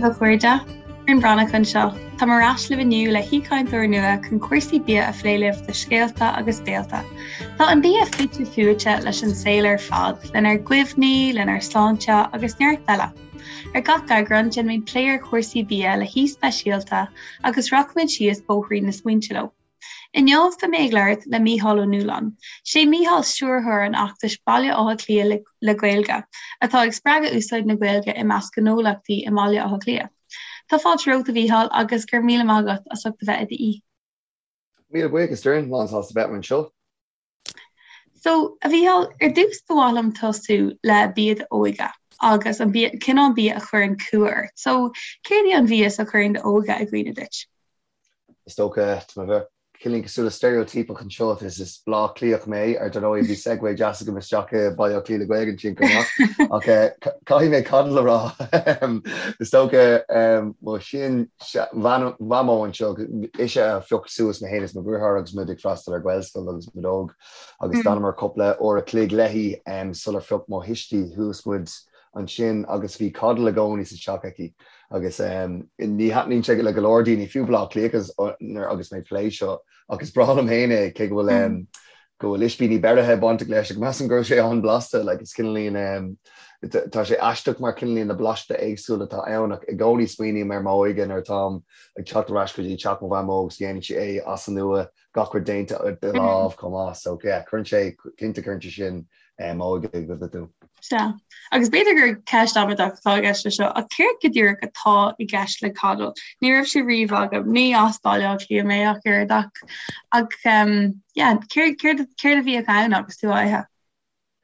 daoibh a chairde, Doireann Breathnach anseo. Táim ar ais libh inniu le haoichainteoir nua chun cúrsaí bia a phlé libh do Scéalta agus Béalta. Tá an bia fite fuaite leis an saol ar fad, lenár gcuimhní, lenár sláinte agus neart eile. Ar gach eagrán, déanfaimid plé ar chúrsaí bia le haoi speisialta agus rachaimid síos bóithrín na smaointe leo. Inniu beidh mé ag labhairt le Mícheál Ó Nualláin. Sé Mícheál stiúrthóir an fheachtais Baile Átha Cliath le Gaeilge, atá ag spreagadh úsáid na Gaeilge i measc gnólachtaí i mBaile Átha Cliath. Tá fáilte romhat, a Mhícheáil, agus go raibh míle maith agat as ucht a bheith i d'aoi. Míle buíochas, Doireann, lán sásta bheith anseo. So, a Mhícheáil, ar dtús ba mhaith liom tosú le bia d'óige agus an bia, cineál bia a chuireann cumha ort. So, céard í an mhias a chuireann d'óige i gcuimhne duit? Is dócha, tá mé bheith cineáilín cosúil le steiréitíopach anseo, is is Bleá Cliathach mé, ar dar ndóigh bhí segue deas agam isteach i Baile Átha Cliath le Gaeilge ansin chomh maith, ach caithfidh mé coddle a rá. Is dócha, mo sin mhamó anseo, ise a phioc suas mé féin is mo dheartháir agus muid ag freastal ar Ghaelscoil agus muid óg agus d'fhanamar cúpla uair a chloig léi sular phioc mo thuistí suas muid ansin agus bhí coddle i gcónaí sa teach aici agus ní thaitníonn sé le go leor daoine, fiú Bleá Cliathach agus mé ag plé seo ach is breá liom féin é cé go bhfuil go bhfuil ispíní beirithe bainteach leis ach measaim go raibh sé an-blasta, like is cineáilín tá sé aisteach mar cineáilín na blasta éagsúla atá ann ach i gcónaí smaoiním ar m'óige nuair atáim ag teacht ar ais go dtí teach mo mhamó agus dhéanann sí é as an nua gach rud déanta de lámh chomh maith so yeah cuireann sé cinnte cuireann sé sin m'óige i gcuimhne dom. Sea. Agus b'fhéidir gur ceist amaideach atá i gceist leis seo, ach céard go díreach atá i gceist le coddle? Ní raibh sé riamh agam, ní as Baile Átha Cliath mé ach oiread ach, ach yeah, céard, céard, céard a bhíodh ann agus tú á ithe?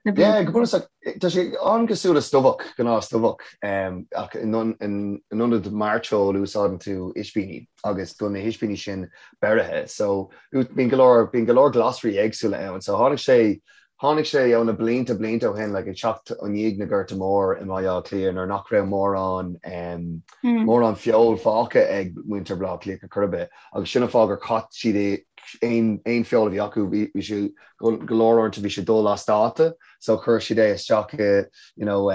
Na Yeah, go bunúsach, tá sé an-chosúil le stobhach, gnáth-stobhach, ach in ionad mairteoil úsáideann tú ispíní agus bíonn na hispíní sin beirithe. So, bíonn go leor, bíonn go leor glasraí éagsúla ann. So tháinig sé, Tháinig sé ó na blianta blianta ó shin, like ag teacht i ndiaidh na Gorta Mór i mBaile Átha Cliath nuair nach raibh mórán mórán feoil fágtha ag muintir Bhaile Átha Cliath ar chor ar bith agus sin an fáth gur chaith siad aon aon feoil a bhí acu bhí bhí sé go go leor uaireanta bhí sé dul as dáta so chuir siad é isteach i you know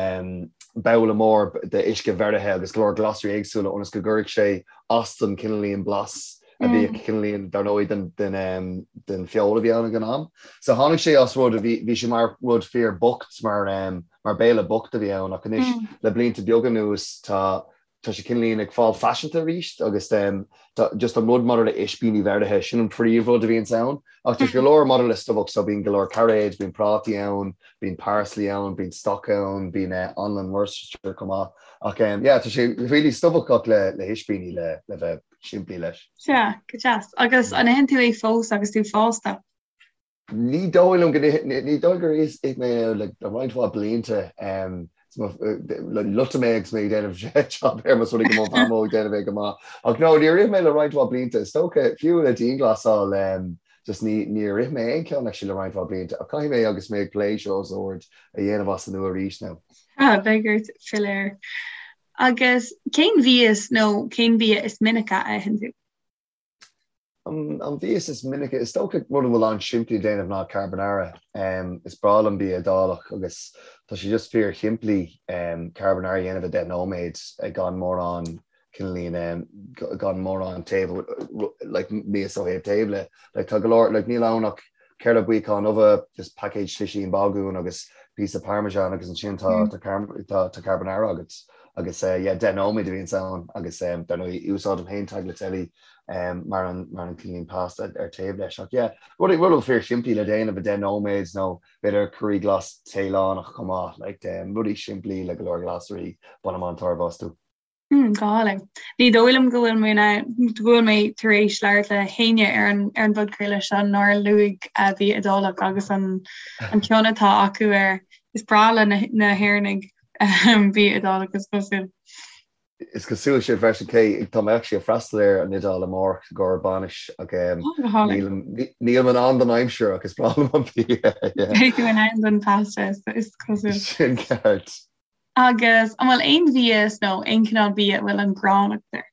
babhla mór de uisce bheirithe agus go leor glasraí éagsúla ionas go gcuirfeadh sé as don cineáilín blas a bhíodh cineáilín dar ndóigh den den den feoil a bhí ann ag an am. So tháinig sé as rud a bhí bhí sé mar rud fíor bocht mar mar béile bocht a bhí ann ach anois le blianta beaga anuas tá tá sé cineáilín ag fáil faiseanta arís agus tá just an rud maidir le ispíní bheirithe sin an príomhrud a bhíonns ann ach tá go leor maidir le stobhach so bíonn go leor cairéid, bíonn prátaí ann, bíonn parsley ann, bíonn stoc ann, bíonn anlann Worcestershire chomh maith ach yeah tá sé really stobhach ach le le hispíní le le bheith simplí leis. Sea, go deas. Agus an itheann tú é fós agus tú fásta? Ní dóigh liom go ní dóigh gur ith mé é le roinnt mhaith blianta. Loitfidh mé agus mé ag déanamh job air más rud é go mo mhamó ag déanamh é go maith. Ach no, níor ith mé le roinnt mhaith blianta. Is dócha, fiú le dianghlasáil, just ní níor ith mé aon cheann actually le roinnt mhaith blianta. Ach caithfidh mé agus mé ag plé seo os ard a dhéanamh as an nua arís now. Ah, beidh ort filleadh air. Agus cén mhias nó cén bia is minice a itheann tú? An mhias is minice, is dócha rud a bhfuil an-simplí le déanamh ná carbonara. Is breá liom bia Iodálach agus tá sé just fíor shimplí carbonara a dhéanamh i 10 nóiméad gan mórán cineáilín gan mórán taobh like mias ó thaobh tábla. Like tá go leor like níl ann ach ceithre buíocán ubhe, just paicéad slisín bagún agus píosa parmesan agus ansin tá tá tá carbonara agat. Agus yeah 10 nóiméad a bhíonns ann agus dar ndóigh úsáidim féin tagliatelle mar an mar an cineáilín pasta ar taobh leis. Ach yeah rud rud fíor simplí le déanamh i 10 nóiméad nó b'fhéidir curaí glas Téalannach chomh maith like rudaí simplí le go leor glasraí bainim an-tairbhe astu. Go hálainn. Ní dóigh liom go bhfuil mé in ann, go bhfuil mé tar éis labhairt le héinne ar an ar an bpodchraoladh seo nár luaigh bia Iodálach agus an an cion atá acu air. Is breá le na na hÉireannaigh bia Iodálach is cosúil. Is cosúil sin freisin cé tá mé actually ag freastal ar an Iodáil amárach i gcomhair bainis ach Go hálainn. nílim in ann don aimsir ach is breá liom an bia. Beidh tú in ann don pasta is cosúil. Sin ceart. Agus an bhfuil aon mhias nó aon chineál bia a bhfuil an ghráin agat air?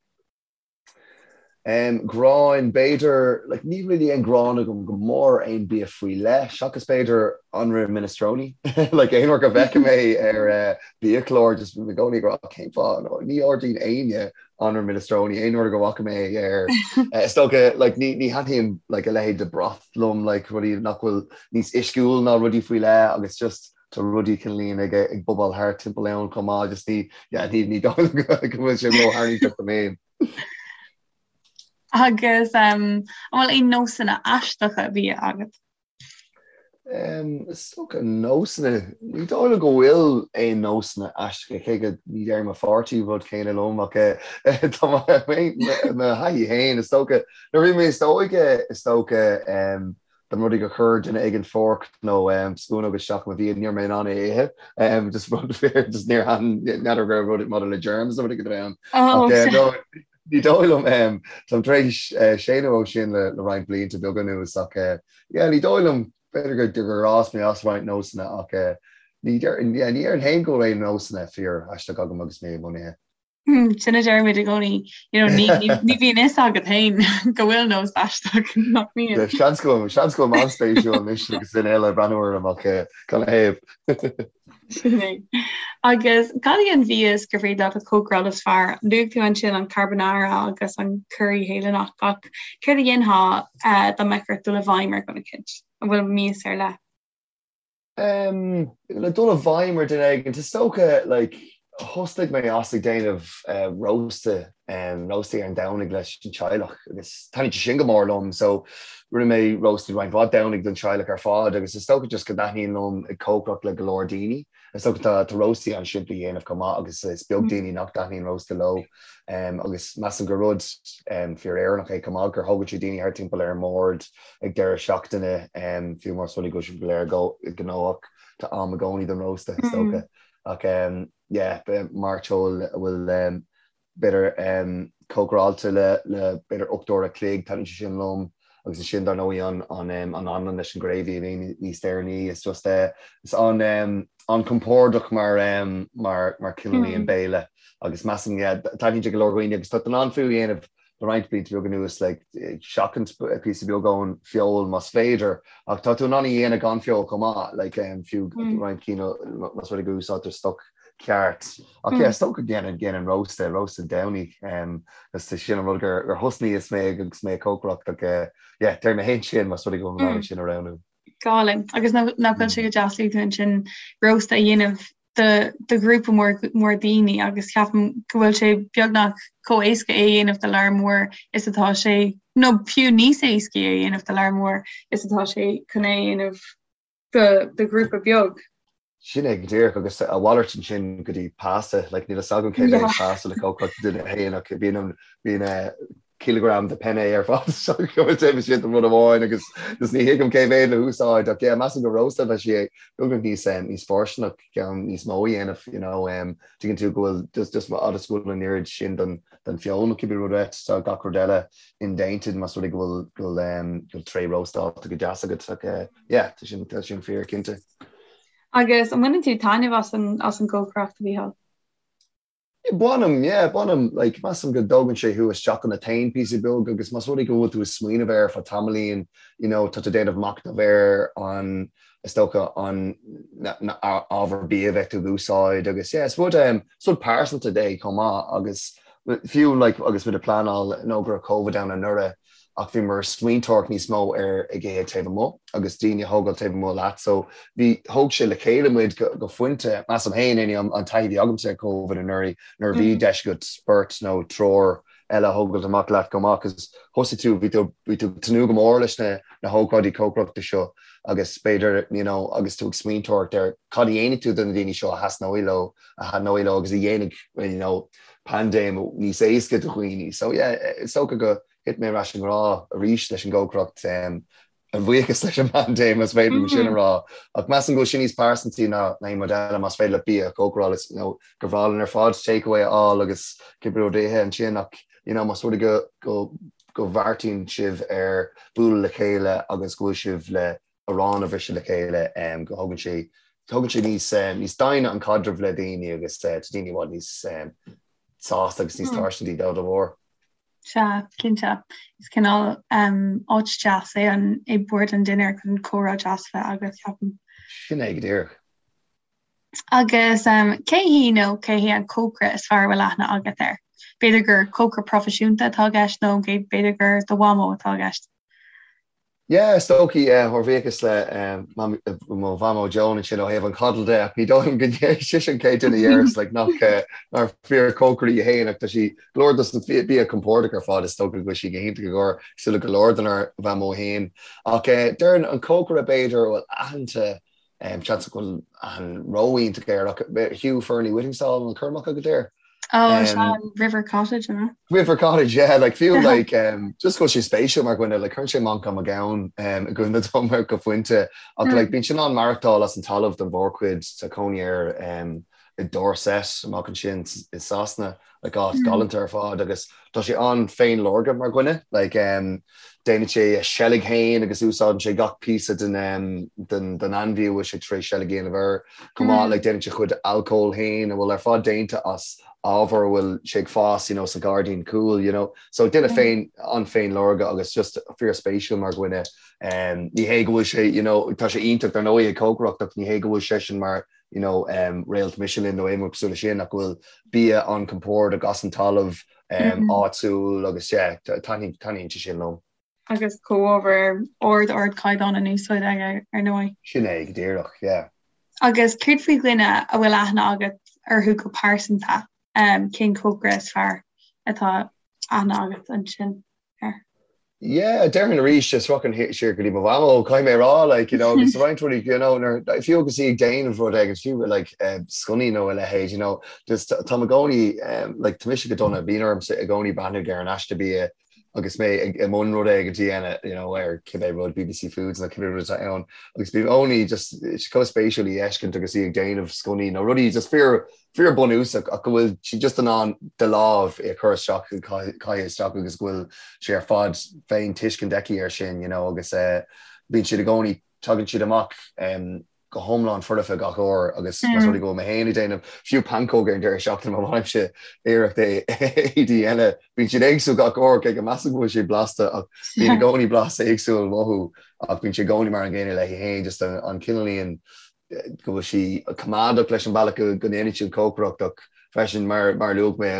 Gráin, b'fhéidir, like níl really aon gráin agam go mór aon bia faoi leith, seachas b'fhéidir anraith minestrone. Like aon uair go bhfeicim é ar biachlár just bím i gcónaí ag rá cén fáth, ní ordaíonn éinne anraith minestrone aon uair go bhfaca mé é ar is dócha like ní ní thaitníonn like a leithéid de broth liom like rudaí nach bhfuil níos uisciúil ná rudaí faoi leith agus just tá rudaí cineáilín ag ag bobáil thart timpeall ann chomh maith just ní yeah ní ní dóigh liom go bhfuil sé ró-tharraingteach dom féin. Agus an bhfuil aon nósanna aisteacha bia agat? Is dócha nósanna, ní dóigh liom go bhfuil aon nósanna aisteacha, cé go ní deir mo pháirtí rud céanna liom ach tá mo thaithí féin, is dócha, nuair a bhí mé níos óige, is dócha, dá mba rud é gur chuir duine éigin fork nó spúnóg isteach i mo bhia, ní raibh mé in ann é a ithe. Just rud fíor, just níor thaitin, n'fheadar go raibh rud maidir le germs nó rud éigin ann. Ach no, ní dóigh liom, táim tar éis séanadh ó sin le roinnt blianta beaga anuas ach yeah, ní dóigh liom, b'fhéidir gur fhás mé as roinnt nósanna ach ní déarfainn féin go bhfuil aon nósanna fíor aisteach agam agus mé i mbun ithe. Sin a deirimid i gcónaí, you know, ní ní bhíonn fhios agat féin go bhfuil nós aisteach nach mbíonn. Seans go bhfuil seans go bhfuil mé an-spéisiúil anois agus duine eile ag breathnú orm ach canathaobh. Sin é. Agus cad é an mhias gur féidir leat a chócaráil is fearr? Luaigh tú ansin an carbonara agus an curaí Théalannach ach céard a dhéanfá dá mbeadh ort dul i bhfeidhm ar dhuine eicínt? An bhfuil mias ar leith? Le dul i bhfeidhm ar duine éigin, is dócha, like, thosnaigh mé as ag déanamh rósta, róstaí ar an Domhnaigh leis an teaghlach agus thaitnigh sé sin go mór liom so rinne mé róstaí roinnt mhaith Domhnaigh don teaghlach ar fad agus is dócha just go dtaitníonn liom ag cócaireacht le go leor daoine. Is dócha tá tá róstaí an-simplí a dhéanamh chomh maith agus is beag daoine nach dtaitníonn rósta leo agus measaim gur rud fíor-Éireannach é chomh maith gur thógann sé daoine thart timpeall ar an mbord ag deireadh seachtaine, fiú más rud é go bhfuil sibh go léir gnóthach, tá am i gcónaí don rósta, is dócha. Ach yeah, mairteoil a bhfuil b'fhéidir cócaráilte le b'fhéidir 8 uair a chloig, taitníonn sé sin liom. Agus ansin dar ndóigh an anlann leis an gravy a bhíonn níos deireanaí, is just is an-compordach mar mar cineál béile. Agus measaim, yeah, taitníonn sé go leor dhaoine agus tá tú in ann fiú a dhéanamh le roinnt blianta beaga anuas, like, seachaint píosa beag ón feoil más féidir, ach tá tú in ann a dhéanamh gan feoil chomh maith, like, fiú roinnt cinn más rud é go úsáidtear stoc ceart. Ach yeah, is dócha go ndéanann déanann rósta, rósta Domhnaigh, agus sin an rud gur gur thosnaíos mé agus mé ag cócaireacht ach yeah, deir mé féin sin más rud é go bhfuil mé in ann sin a roghnú. Go hálainn. Agus nach bhfuil sé go deas luaigh tú ansin rósta a dhéanamh do do ghrúpa mór mór daoine agus ceapaim go bhfuil sé beagnach chomh éasca é a dhéanamh do lear mór is atá sé, nó fiú níos éascaí é a dhéanamh do lear mór is atá sé chun é a dhéanamh do do ghrúpa beag. Sin é go díreach agus a mhalairt ansin go dtí pasta, like níl a fhios agam cé mhéad pasta le cócaireacht duine féin ach bíonn an bíonn cileagram de penne ar fad so go bhfuil sé don rud amháin agus just ní thuigim cé mhéad le húsáid ach yeah measaim go rósta bheadh sé beagnach níos níos fóirsteanach ceann níos mó a dhéanamh you know um, tuigeann tú go bhfuil just just fhad is go bhfuil an oiread sin den den feoil nó cibé rud é tá gach rud eile indéanta más rud é go bhfuil go bhfuil um, go bhfuil tray róstálta go deas agat ach uh, yeah tá sin tá sin fíor cinnte. Agus an mbaineann tú taitneamh as an as an gcócaireacht a Mhícheáil? Bainim, yeah, bainim. Like, measaim go dtógann sé thú isteach ionat féin píosa beag agus más rud é go bhfuil tú ag smaoineamh air fá tamaillín, you know, tá tú ag déanamh machnamh ar an, is dócha, an na ábhar bia a bheidh tú ag úsáid agus yeah, is rud, um, is rud pearsanta é chomh maith agus fiú like agus muid ag pleanáil nó go raibh Covid ann anuraidh, ach bhíomar ag smaointeoireacht níos mó ar ag ithe taobh amuigh agus daoine a thógáil taobh amuigh leat so bhí thóg sé le chéile muid go go pointe measaim féin anyway an taithí a bhí agamsa ar Covid anuraidh nuair a bhí deis agat beirt nó triúr eile a thógáil amach leat go maith cos thosaigh tú bhí tú bhí tú ag tnúth go mór leis na na hócáidí cócaireachta seo agus b'fhéidir you know agus tú ag smaointeoireacht ar cad a dhéanfaidh tú do na daoine seo a thaitneoidh leo a thaitneoidh leo agus a dhéanfaidh you know paindéim níos éasca do dhaoine. So yeah, is dócha go thit mé ar ais i ngrá arís leis an gcócaireacht, a bhuíochas leis an bpaindéim, más féidir liom sin a rá. Ach measaim go bhfuil sin níos pearsantaí ná aon rud eile, más féidir leat bia a chócaráil, is you know, gur bhreá linn ar fad takeaway a fháil agus cibé rud a ithe ansin ach you know, más rud é go, go, go bheartaíonn sibh ar bualadh le chéile agus go bhfuil sibh le arán a bhriseadh le chéile, go thógann sé, tógann sé níos, níos doimhne an caidreamh le daoine agus tá daoine i bhfad níos sásta agus níos tairsintí dá bharr. Sea, cinnte. Is cineál áit deas é an é bord an dinnéir chun comhrá deas a bheith agat, ceapaim. Sin é go díreach. Agus cé hí nó cé hé an cócaire is fearr a bhfuil aithne agat air? B'fhéidir gur cócaire proifisiúnta atá i gceist nó b'fhéidir gur do mhamó atá i gceist. Yeah, is dóichí, ár bhuíochas le mo mhamó Joan ansin ó thaobh an coddle de, ach ní dóigh liom go ndéarfaidh sise an chéad duine a dhéarfas like nach nár fíorchócaire í féin ach tá sí go leor dos na bia compordach ar fad is dócha go bhfuil sí go hiontach i gcomhair cosúil le go leor denár mhamó féin. Ach déarfainn an cócaire b'fhéidir a bhfuil aitheanta Seans go bhfuil aithne ró-iontach air ach Hugh Fearnley-Whittingstall an cur amach agat air? Oh, um, an River Cottage, an River Cottage, yeah, like fiú like um, just go sé spéisiúil mar dhuine like cuireann sé Manchán Magan um, i gcuimhne dom ar go pointe ach mm. like bíonn sé in ann maireachtáil as an talamh don mhórchuid tá cónaí air um, i Dorset amach ansin i Sasana like áit mm. galánta ar fad agus tá sé an-féinleormhach mar dhuine like um, déanann sé a seilg féin agus úsáideann sé gach píosa den um, den, den ainmhí a bhfuil sé tar éis seilg a dhéanamh air chomh maith mm. like déanann sé a chuid alcóil féin a bhfuil ar fad déanta as ábhar a bhfuil sé ag fás you know, sa ghairdín cúil you know. so duine mm. féin an-féinleormhach agus just fíorspéisiúil mar dhuine um, ní hé go bhfuil sé you know, tá sé iontach dar ndóigh ag cócaireacht ach ní hé go bhfuil seisean mar you know, um, réalt Michelin nó aon rud cosúil leis sin ach go bhfuil bia an-chompordach as an talamh um, mm. áitiúil agus yeah, taitníonn sé sin liom. Agus comhábhair ard ardchaighdeán in úsáid aige ar ndóigh. Sin é go díreach, yeah. Agus céard faoi dhuine a bhfuil aithne agat orthu go pearsanta, um, cén cócaire is fearr atá aithne agat ansin? air. Yeah, déarfainn arís, just rachainn siar go dtí mo mhamó, caithfidh mé a rá, like, you know, agus roinnt rudaí, you know, nuair, fiú agus í ag déanamh rud éigin, fiú, like, eh, sconnaí nó a leithéid, you know, just táim i gcónaí, um, like, tá mise go dona, bíonn ormsa i gcónaí breathnú ar an aiste bia agus mé ag, i mbun rud éigin a dhéanamh, you know, ar cibé rud, BBC Foods nó cibé rud atá ann, agus bím i gcónaí just, chomh spéisiúil í a fheiscint agus í ag déanamh sconnaí nó rudaí just fíor, fíor bunúsach ach go bhfuil sí just in ann de láimh é a chur isteach, caitheamh isteach agus go bhfuil sé ar fad féin tuiscint aici air sin, you know, agus eh, bíonn siad i gcónaí, tagann siad amach em, go hiomlán foirfe gach uair agus más rud é go bhfuil mé féin ag déanamh fiú pancóg ar an deireadh seachtaine má bhainimse iarracht é a dhéanamh, bíonn siad éagsúil gach uair cé go measaim go bhfuil siad blasta ach bíonn i gcónaí blas éagsúil uathu ach bíonn sé i gcónaí mar an gcéanna léi féin just an, an cineáilín go bhfuil sí coimeádach leis an bealach go ndéanann sí an chócaireacht ach freisin mar a luaigh mé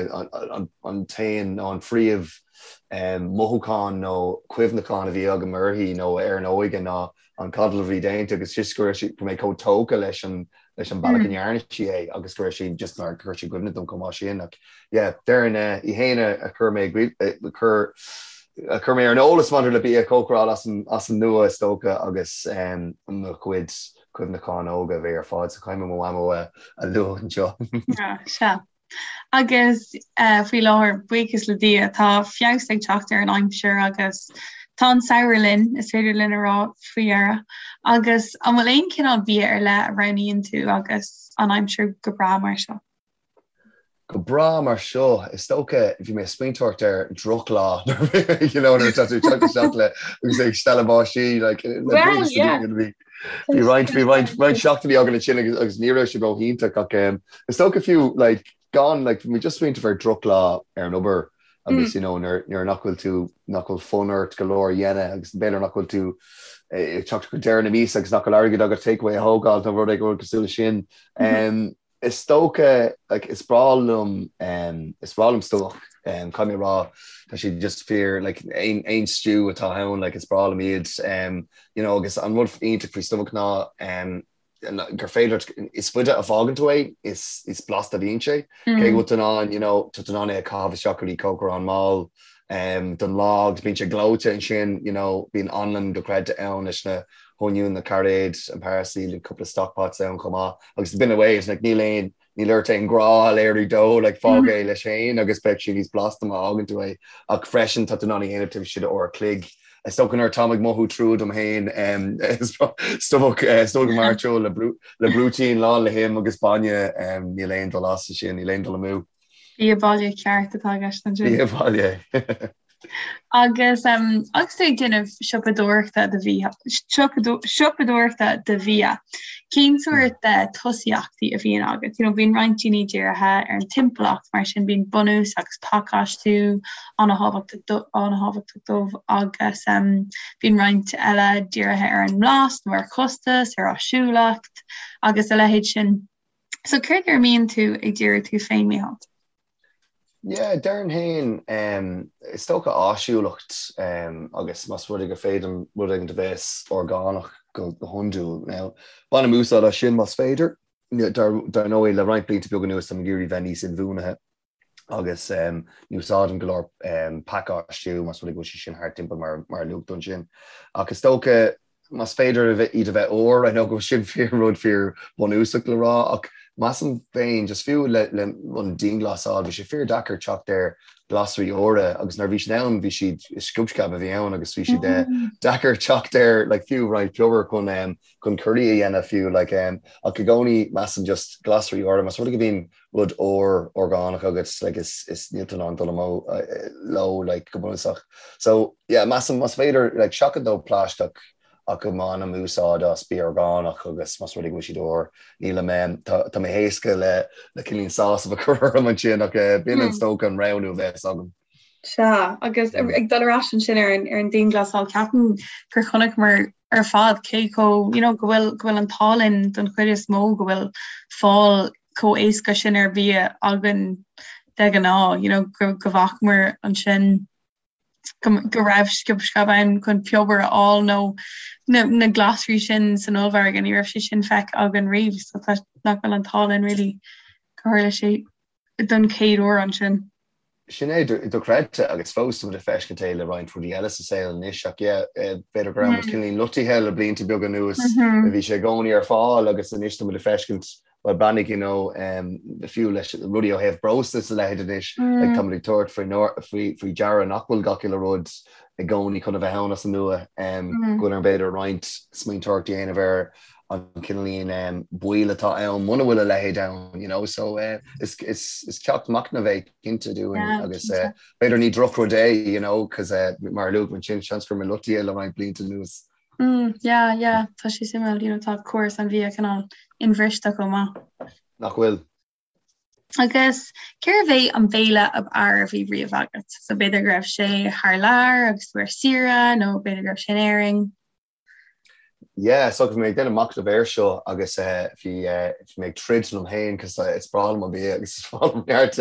an t-aon nó an phríomh mothúchán nó cuimhneachán a bhí agam uirthi nó ar an óige ná an coddle a bhí déanta agus just go raibh sí go mé chomh tógtha leis an leis an bealach a ndearna sí é agus go raibh sí just mar chuir sí i gcuimhne dom chomh maith sin ach yeah déarfainn í féin a chuir mé a chuir a chuir mé ar an eolas maidir le bia a chócaráil as an as an nua is dócha agus mo chuid cuimhneacháin óga a bhí ar fad so caithfidh mé mo mhamó a lua anseo. Sea. Agus faoi láthair, buíochas le Dia, tá feabhas ag teacht ar an aimsir agus tá an samhradh linn, is féidir linn a rá faoi dheireadh. Agus an bhfuil aon chineál bia ar leith a roghnaíonn tú agus an aimsir go breá mar seo? Go breá mar seo, is dócha, bhí mé ag smaointeoireacht ar drochlá you know, nuair atá tú ag teacht isteach le agus ag stealladh báistí like, le Well, yeah. bhí bhí roinnt bhí roinnt roinnt seachtainí againn ansin agus agus ní raibh sé ró-iontach ach um, is dócha fiú like, gan like, bhí mé just smaointeamh ar drochlá ar an obair agus you know, nuair nuair nach bhfuil tú nach bhfuil fonn ort go leor a dhéanamh agus b'fhéidir nach bhfuil tú eh, ag teacht go deireadh na míosa agus nach bhfuil airgead agat takeaway a thógáil nó rud éigin cosúil leis sin. Um, Is dócha, like, is breá liom, um, is breá liom stobhach, um, caithfidh mé a rá, tá siad just fíor, like, aon, aon stew atá ann, like, is breá liom iad, um, you know, agus an rud iontach faoi stobhach ná, um, gur féidir, is faide a fhágann tú é, is, is blasta a bhíonn sé, cé go bhfuil tú in ann, you know, tá tú in ann é a chaitheamh isteach go dtí cócaireán mall, um, don lá agus bíonn sé gleoite ansin, you know, bíonn anlann dochreidte ann leis na hoinniúin, na cairéid, an parsley, cúpla stock pots ann chomh maith. Agus b'in away, it's like níl aon, níl ort aon ghrá a léiriú dó, like fág é leis féin agus beidh sé níos blasta má fhágann tú é. Ach freisin tá tú in ann é a dhéanamh taobh istigh de uair a chloig. Is dócha nuair atáim ag mothú trua dom féin, stobhach, stobhach mairteoil le brú, le brúitín lán le him agus bainne, níl aon dul as ansin, níl aon dul amú. Bia baile ceart atá i gceist ansin. Bia baile. Agus agus tú ag déanamh siopadóireachta do bhia, siopadóireachta do bhia, cén sórt de tosaíochtaí a bhíonn agat? You know, bíonn roinnt daoine dírithe ar an timpeallacht, mar sin bíonn bunús agus pacáistiú an-thábhachtach dóibh agus bíonn roinnt eile dírithe ar an mblas nó ar chostas, ar áisiúlacht agus a leithéid sin. So céard ar a mbíonn tú ag díriú tú féin, Mícheál? Yeah, déarfainn féin, is dócha áisiúlacht agus más rud é gur féidir rud éigin a bheas orgánach go hiondúil. Now, bainim úsáid as sin más féidir. Dar ndóigh, le roinnt blianta beaga anuas táim ag iarraidh bheith níos inbhuanaithe agus ní úsáidim go leor pacáistiú más rud é go bhfuil sé sin thart timpeall mar a luaigh tú ansin. Ach is dócha más féidir iad a bheith úr, I know go bhfuil sin fíor rud fíor bunúsach le rá ach measaim féin just fiú le le an dianghlasáil bhí sé fíor deacair teacht ar glasraí úra agus nuair a bhí siad ann bhí siad is sciob sceab a bhí ann agus bhí siad eh, deacair teacht ar like fiú roinnt piobar chun um, chun curry a dhéanamh fiú like um, ach i gcónaí measaim just glasraí úra más rud é go mbíonn rud úr orgánach agus like is is níl tú in ann dul amú leo like go bunúsach. So yeah measaim más féidir like seachaint ó plaisteach ach go mbainim úsáid as bia orgánach agus más rud é go bhfuil siad úr nílim em tá tá mé héasca le le cineál sásamh a chur orm ansin ach eh b'in is dócha an roghnú a bheas agam. Sea, agus ag dul ar ais ansin ar an ar an dianghlasáil, ceapaim gur chonaiceamar ar fad cé chomh, you know, go bhfuil go bhfuil an t-ádh linn don chuid is mó go bhfuil fáil chomh éasca sin ar bhia againn de ghnáth, you know, go go bhfacamar ansin go go raibh sciob sceab ann chun piobar a fháil nó na na glasraí sin san ollmhargadh, ní raibh sé sin feicthe againn riamh, so tá nach bhfuil an t-ádh linn really gur tharla sé don chéad uair ansin. Sin é, dochreidte, agus fós tá muid ag feiscint é le roinnt rudaí eile sa saol anois ach yeah, b'fhéidir go raibh muid cineál loitithe le blianta beaga anuas, bhí sé i gcónaí ar fáil agus anois tá muid ag feiscint, well breathnaigh you know, fiú leis rudaí ó thaobh breosla is a leithéid anois, like tá muid ag tabhairt faoi faoi deara nach bhfuil gach uile rud i gcónaí chun a bheith ann as an nua, go bhfuil orainn b'fhéidir roinnt smaointeoireacht a dhéanamh ar an cineáilín baol atá ann muna bhfuil a leithéid ann, you know, so is is ceacht machnaimh é cinnte dúinn agus b'fhéidir ní drochrud é, you know, cos mar a luaigh mé ansin, seans go raibh muid loitithe le roinnt blianta anuas. Mm, yeah, yeah, tá sé suimiúil, you know, tá córas an bhia cineál inbhriste chomh maith. Nach bhfuil? Agus cérbh é an béile ab fhearr a bhí riamh agat? So b'fhéidir go raibh sé thar lear agus tú ar saoire nó b'fhéidir go raibh sé in Éirinn? Yeah, so bhí mé ag déanamh machnamh air seo agus bhí bhí mé ag troid liom féin cos is breá liom an bia agus is breá liom neart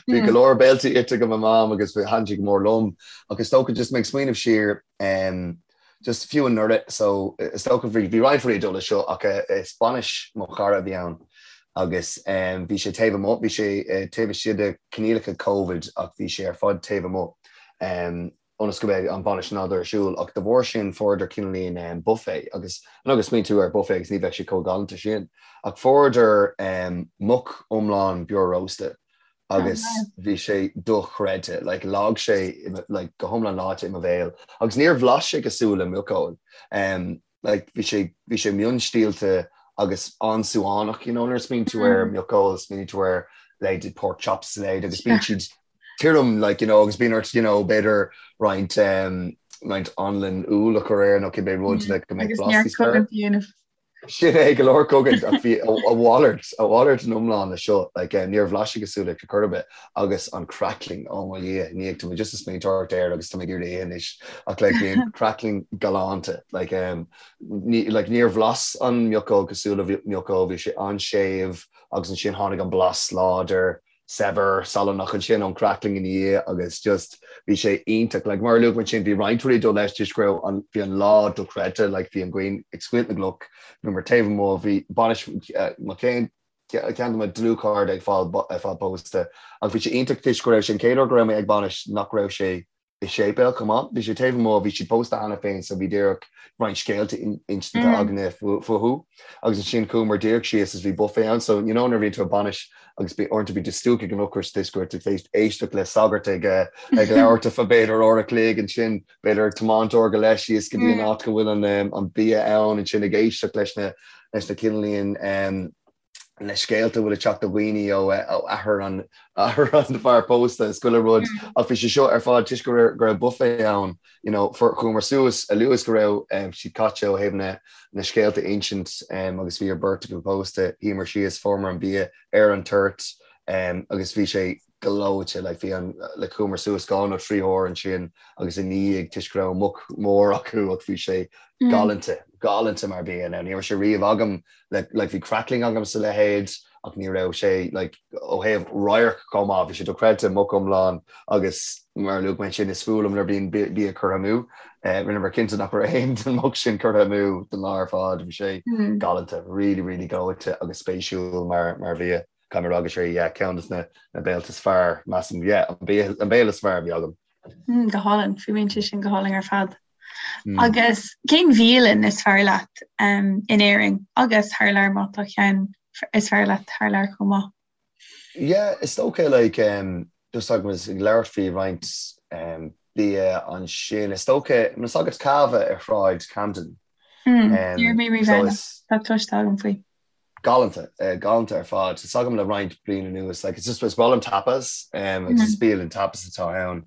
bhí go leor béiltí ite ag mo mham agus bhí thaitin siad go mór liom ach is dócha just mé ag smaoineamh siar just fiú anuraidh so is dócha bhí bhí roinnt rudaí ag dul leis seo ach is bainis mo chara a bhí ann agus bhí sé taobh amuigh bhí sé taobh istigh de coinníollacha Covid ach bhí sé ar fad taobh amuigh. ionas go mbeidh an bhainis in ann dul ar siúl ach de bharr sin fuaireadar cineáilín buffet agus I know go smaoiníonn tú ar buffet agus ní bheadh sé chomh galánta sin ach fuaireadar muc iomlán beorósta agus bhí sé dochreidte like leáigh sé like go hiomlán leáite i mo bhéal agus níor bhlais sé cosúil le muiceoil like bhí sé bhí sé mionstiallta agus an-súánach you know nuair a smaoiníonn tú ar mhiocóil smaoiníonn tú ar leithéidí pork chops is a leithéid agus bíonn siad tirim like you know agus bíonn ort you know b'fhéidir roinnt um, roinnt anlann úll a chur air nó cibé rud le go mbeidh blas níos fearr. Sin é go leor cogaint ach bhí a mhalairt a mhalairt in iomlán le seo like eh, níor bhlais sé cosúil le chor ar bith agus an crackling oh mo Dhia ní tá mé just ag smaointeoireacht air agus tá mé ag iarraidh é anois ach like bhí an crackling galánta like um, ní, like níor bhlas an mhiocóg cosúil le mhiocóg bhí sé an-séimh agus ansin tháinig an blas láidir saibhir, salannach ansin ón crackling ina dhiaidh agus just bhí sé iontach. Like mar a luaigh mé ansin bhí roinnt rudaí ag dul leis toisc go raibh an, bhí an lá dochreidte, like bhí an ghrian ag scoilteadh na gcloch, bhíomar taobh amuigh, bhí bainis mo chéad, ceann de mo dlúthchairde ag fáil, ag fáil pósta ach bhí sé iontach toisc go raibh sé an chéad uair go raibh mé ag bainis nach raibh sé i séipéal chomh maith. Bhí sé taobh amuigh, bhí siad pósta cheana féin so bhí díreach roinnt scéalta inste againne fúthu. Agus ansin chuamar díreach síos is bhí buffet ann so you know nuair a bhíonn tú ag bainis agus bí uaireanta bíonn tú stiúgtha ag an ocras toisc go raibh tú tar éis éisteacht le sagart ag ag labhairt ar feadh b'fhéidir uair a chloig ansin b'fhéidir ag tiomáint uair go leith síos go dtí an áit go bhfuil an an bia ann ansin ag éisteacht leis na leis na cineáilín. Na scéalta a bhfuil ag teacht ó dhaoine ó athair an athair an fear pósta is chuile rud ach bhí sé seo ar fad toisc go raibh go raibh buffet ann you know chuamar suas a luaithe is go raibh siad caite ó thaobh na na scéalta a insint agus bhí an bheirt acu pósta shuíomar síos fuaireamar an bia ar an toirt agus bhí sé gleoite like bhí an like chuamar suas dhá nó trí huair ansin agus i ndiaidh toisc go raibh muc mór acu ach bhí sé galánta galánta mar bia now ní raibh sé riamh agam like like bhí crackling agam is a leithéid ach ní raibh sé like ó thaobh radharc chomh maith bhí sé dochreidte muc iomlán agus mar a luaigh mé ansin is fuath liom nuair bíonn bia curtha amú eh rinneamar cinnte nach raibh aon den muc sin curtha amú don lá ar fad bhí sé galánta really really gleoite agus spéisiúil mar mar bhia. Caithfidh mé a rá go sé yeah ceann de na béilte is fearr, measaim, yeah, an béile is fearr a bhí agam. Mm, go hálainn, fuaimníonn sé sin go hálainn ar fad. Mm. Agus cén bhialann is fearr leat um, in Éirinn agus thar lear má tá ceann is fearr leat thar lear chomh maith? Yeah, is dócha like um, just agus ag labhairt faoi roinnt um, bia ansin, is dócha, tá a fhios agat Cava ar Shráid Camden. Mm, um, Ní raibh mé riamh tá cloiste agam faoi. Galánta, galánta ar fad. Tá a fhios agam le roinnt bliain anuas, like it's just is breá liom tapas, um, agus is bialann tapas atá ann,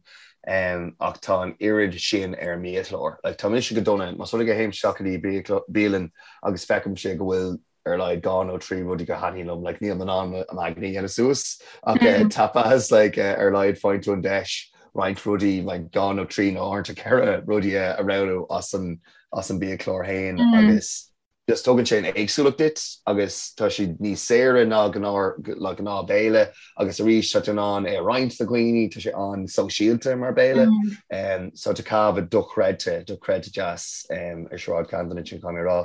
um, ach tá an oiread sin ar an mbiachlár. Like tá mise go dona, más rud é go théim isteach go dtí bialann agus feicimse go bhfuil ar a laghad dhá nó trí rudaí go thaitníonn liom, like níl mé in ann m'aigne a dhéanamh suas, ach uh, tapas, like uh, ar a laghad faigheann tú an deis roinnt rudaí, like dhá nó trí nó uaireanta ceithre rudaí a roghnú as an as an biachlár féin agus just tugann sé an éagsúlacht duit agus tá siad níos saoire ná gnáth béile agus arís tá tú in ann é a roinnt le dhaoine, tá sé an-sóisialta mar béile. Um, so tá Cava dochreidte, dochreidte deas um, ar Sráid Camden ansin caithfidh mé a rá.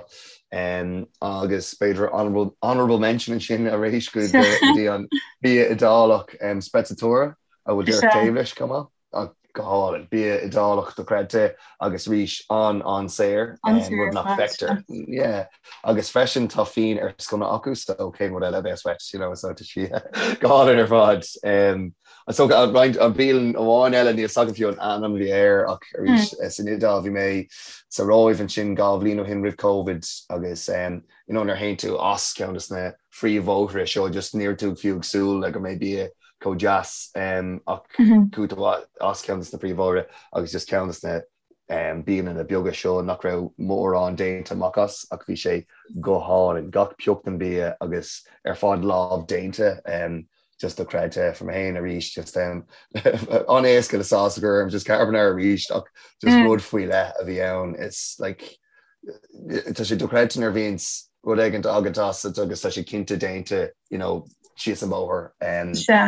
Um, agus b'fhéidir honorable, honorable mention ansin arís go dtí an bia Iodálach um, Sprezzatura a bhfuil díreach taobh leis chomh maith. Ach go hálainn. Bia Iodálach dochreidte agus arís an-an-saor, rud nach bhfeictear. Yeah. Agus freisin tá fíon ar sconna acu so cén rud eile a bheas uait, you know, so tá sí go hálainn ar fad. Um, so roinnt an bialann amháin eile níl a fhios agam fiú an ainm a bhí air ach arís mm. san Iodáil bhí mé sa Róimh ansin dhá bhliain ó shin roimh Covid agus um, you know, nuair a théann tú as ceann de na phríomhbhóithre seo just ní raibh tú fiú ag súil le go mbeidh bia chomh deas ach chuaigh tú as ceann de na príomhbhóithre agus just ceann de na bialanna beaga seo nach raibh mórán déanta amach as ach bhí sé go hálainn, gach pioc den bia agus ar fad lámh déanta just dochreidte for mé féin arís just an-éasca le sauce a chur orm just carbonara arís ach just rud faoi leith a bhí ann it's like tá sé dochreidte nuair a bhíonns rud éigin agat as agus tá sé cinnte déanta you know, síos an bóthar.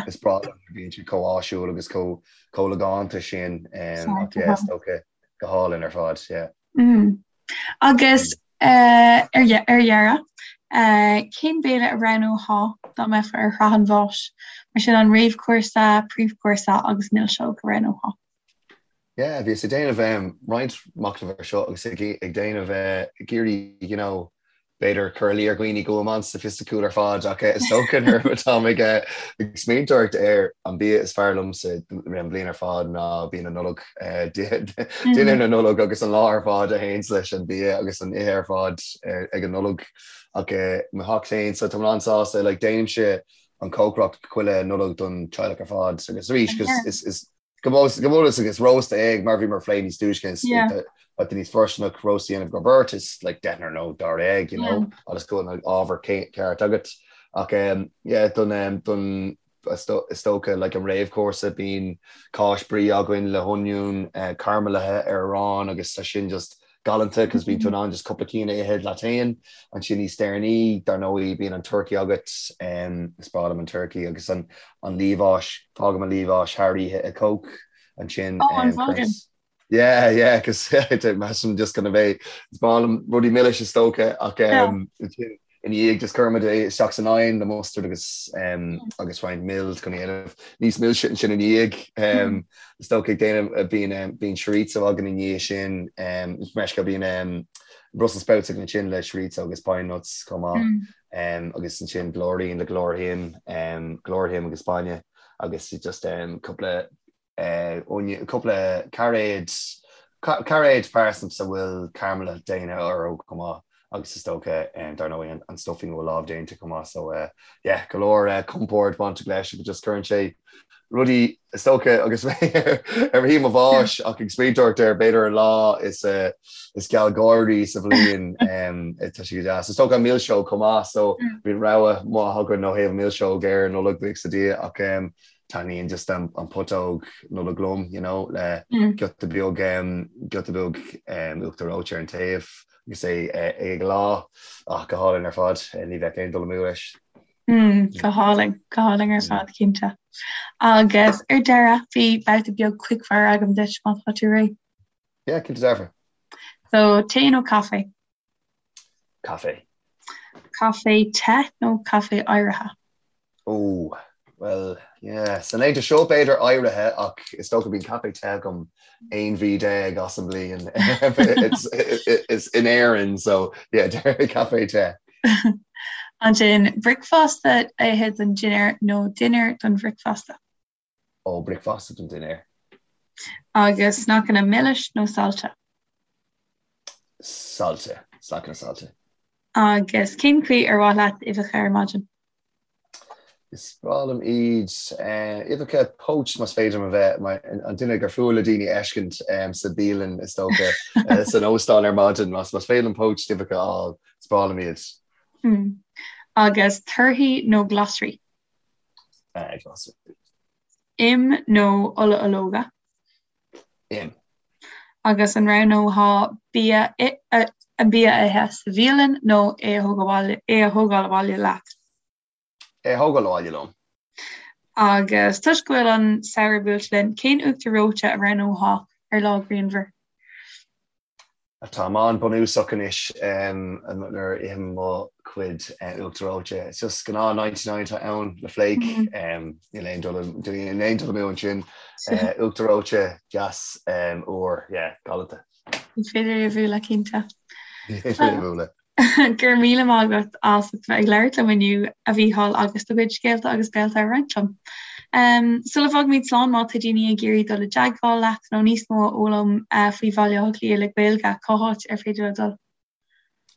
Is breá liom nuair a bhíonn siad chomh áisiúil agus chomh chomh logánta sin ach yeah, is dócha go hálainn ar fad, yeah. Mm. Agus uh, ar ar dheireadh, uh, cén béile a roghnófá dá mbeifeá ar shraith an bháis? Mar sin an réamhchúrsa, príomhchúrsa agus milseog a roghnófá. Yeah, bhíos ag déanamh roinnt machnaimh ar seo agus ag déanamh ag iarraidh, you know, b'fhéidir cur i luí ar dhaoine go bhfuil mé an-soifisticiúil ar fad ach is dócha nuair atáim ag ag smaointeoireacht ar an bia is fearr liomsa an bhliain ar fad ná bia na Nollag, dinnéar na Nollag agus an lá ar fad a théanns leis an bia agus an ithe ar fad ag an Nollaig. Ach mo theach féin, so tá mé an-sásta, like déanaimse an cócaireacht chuile Nollaig don teaghlach ar fad agus arís is is Go bunúsach is rósta é mar bhíomar ag plé níos túisce is tá níos fóirsteanach rósta a dhéanamh go beirt is like deichniúr nó dáréag you know agus go bhfuil an ábhar ceart agat. Ach um, yeah, don, um, don is dócha like an réamhchúrsa bíonn cáis brie againn le hoinniún uh, caraimilithe ar arán agus tá sin just galánta cos bíonn tú in ann just cúpla cinn a ithe leat féin. Ansin níos deireanaí, dar ndóigh, bíonn an turcaí agat, is breá liom an turcaí agus an an liamhás, fágaim an liamhás thar oíche i Coke ansin. Oh, an bhfágann? Yeah, yeah, cos measaim just gonna bheith, is breá liom rudaí milis is dócha ach ansin ina dhiaidh just cuirimid é isteach san oigheann le mustard agus agus roinnt mil chun é a dhéanamh níos milse ansin ina dhiaidh. Is dócha ag déanamh bíonn bíonn chorizo againn ina dhiaidh sin meisce bíonn Brussels sprouts againn ansin le chorizo agus pine nuts chomh maith agus ansin blúirín le go leor im go leor im agus bainne agus just cúpla cúpla cairéad cairéad parsnips a bhfuil caramal déanta orthu chomh maith. Agus is dócha, dar ndóigh, an stuffing a bhfuil lámh déanta chomh maith. So yeah, go leor compord bainteach leis agus just cuireann sé rudaí, is dócha, agus mé ar shuí mo bháis ach ag smaointeoireacht ar b'fhéidir an lá is is gealgháirí sa bhliain, tá sé go deas. Is dócha an milseog chomh maith, so bíonn rogha mhaith againn ó thaobh milseog ar Nollaig, buíochas le Dia, ach taitníonn just an putóg Nollag liom, you know, le giota beag giota beag uachtar reoite ar an taobh. Agus é ag leá, ach go hálainn ar fad, ní bheadh aon dul amú leis. Go hálainn, go hálainn ar fad, cinnte. Agus ar deireadh, bhí babhta beag quickfire agam duit, má tá tú réidh. Yeah, cinnte dearfa. So, tae nó caife? Caife. Caife te nó caife oighrithe? Ó, bhuel, yeah, sna laethanta seo b'fhéidir oighrithe ach is dócha bíonn caife te agam 11 mhí as an mbliain is in Éirinn, so yeah, caife te. Ansin, bricfeasta a ithe don dinnéar nó dinnéar don bhricfeasta? Ó, bricfeasta don dinnéar. Agus sneaiceanna milis nó saillte? Saillte, sneaiceanna saillte. Agus cén chaoi ar mhaith leat uibheacha ar maidin? Is breá liom iad. Uibheacha poached más féidir liom a bheith mar an duine gur fuath le daoine a fheiscint sa bialann is dócha, san óstán ar maidin. Más féidir liom poached uibheacha a fháil, is breá liom iad. Agus torthaí nó glasraí? Glasraí. Im nó ola ológa? Im. Agus an roghnófá bia an bia a ithe sa bhialann nó é a thógáil abhaile leat? É a thógáil abhaile liom. Agus toisc go bhfuil an samhradh buailte linn, cén uachtar reoite a roghnófá ar lá grianmhar? Táim an-bhunúsach anois nuair a ithim mo chuid uachtar reoite. It's just gnáth 99 atá ann le flake. Níl aon dul níl aon dul amú ansin. Uachtar reoite deas úr, yeah, galánta. Ní féidir é a bhualadh, cinnte. Ní féidir é a bhualadh. Go raibh míle maith agat as ucht bheith ag labhairt liom inniu, a Mhícheáil, agus do chuid scéalta agus béalta a roinnt liom. Sula bhfágaimid slán, má tá daoine ag iarraidh dul i dteagmháil leat nó níos mó a fhoghlaim faoi Bhaile Átha Cliath le Gaeilge, cá háit ar féidir leo dul?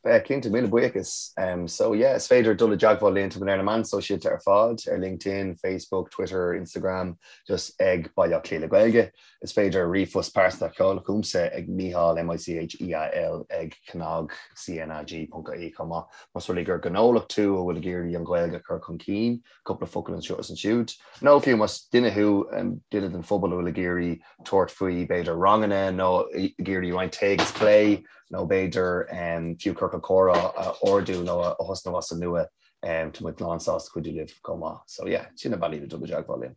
Cinnte, míle buíochas. So yeah, is féidir dul i dteagmháil linn, tá muid ar na meáin sóisialta ar fad, ar LinkedIn, Facebook, Twitter, Instagram, just ag Baile Átha Cliath le Gaeilge. Is féidir ríomhphost pearsanta a sheoladh chugamsa ag Mícheál, M-I-C-H-E-A-L, ag cnag, C-N-A-G, ponc ie chomh maith. Más rud é gur gnólacht tú a bhfuil ag iarraidh an Ghaeilge a chur chun cinn, cúpla focal anseo is ansiúd, nó fiú más duine thú, duine den phobal a bhfuil ag iarraidh tabhairt faoi b'fhéidir ranganna nó ag iarraidh roinnt tae agus plé nó b'fhéidir fiú ciorcal comhrá a ardú nó a thosnú as an nua, tá muid lán sásta cuidiú libh chomh maith. So yeah, sin na bealaí le dul i dteagmháil linn.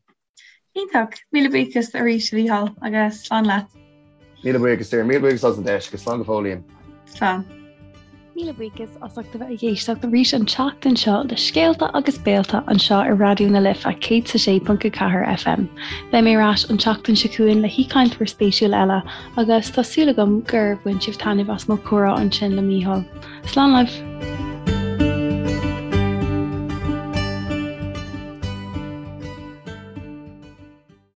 Iontach! Míle buíochas arís a Mhícheáil agus slán leat. Míle buíochas Doireann, míle buíochas as an deis agus slán go fóillín. Slán. Míle buíochas as ucht a bheith ag éisteacht arís an tseachtain seo le Scéalta agus Béalta anseo ar Raidió na Life 106.4 FM. Beidh mé ar ais an tseachtain seo chugainn le haoichainteoir spéisiúil eile agus tá súil agam gur bhain sibh taitneamh as mo chomhrá ansin le Mícheál. Slán libh!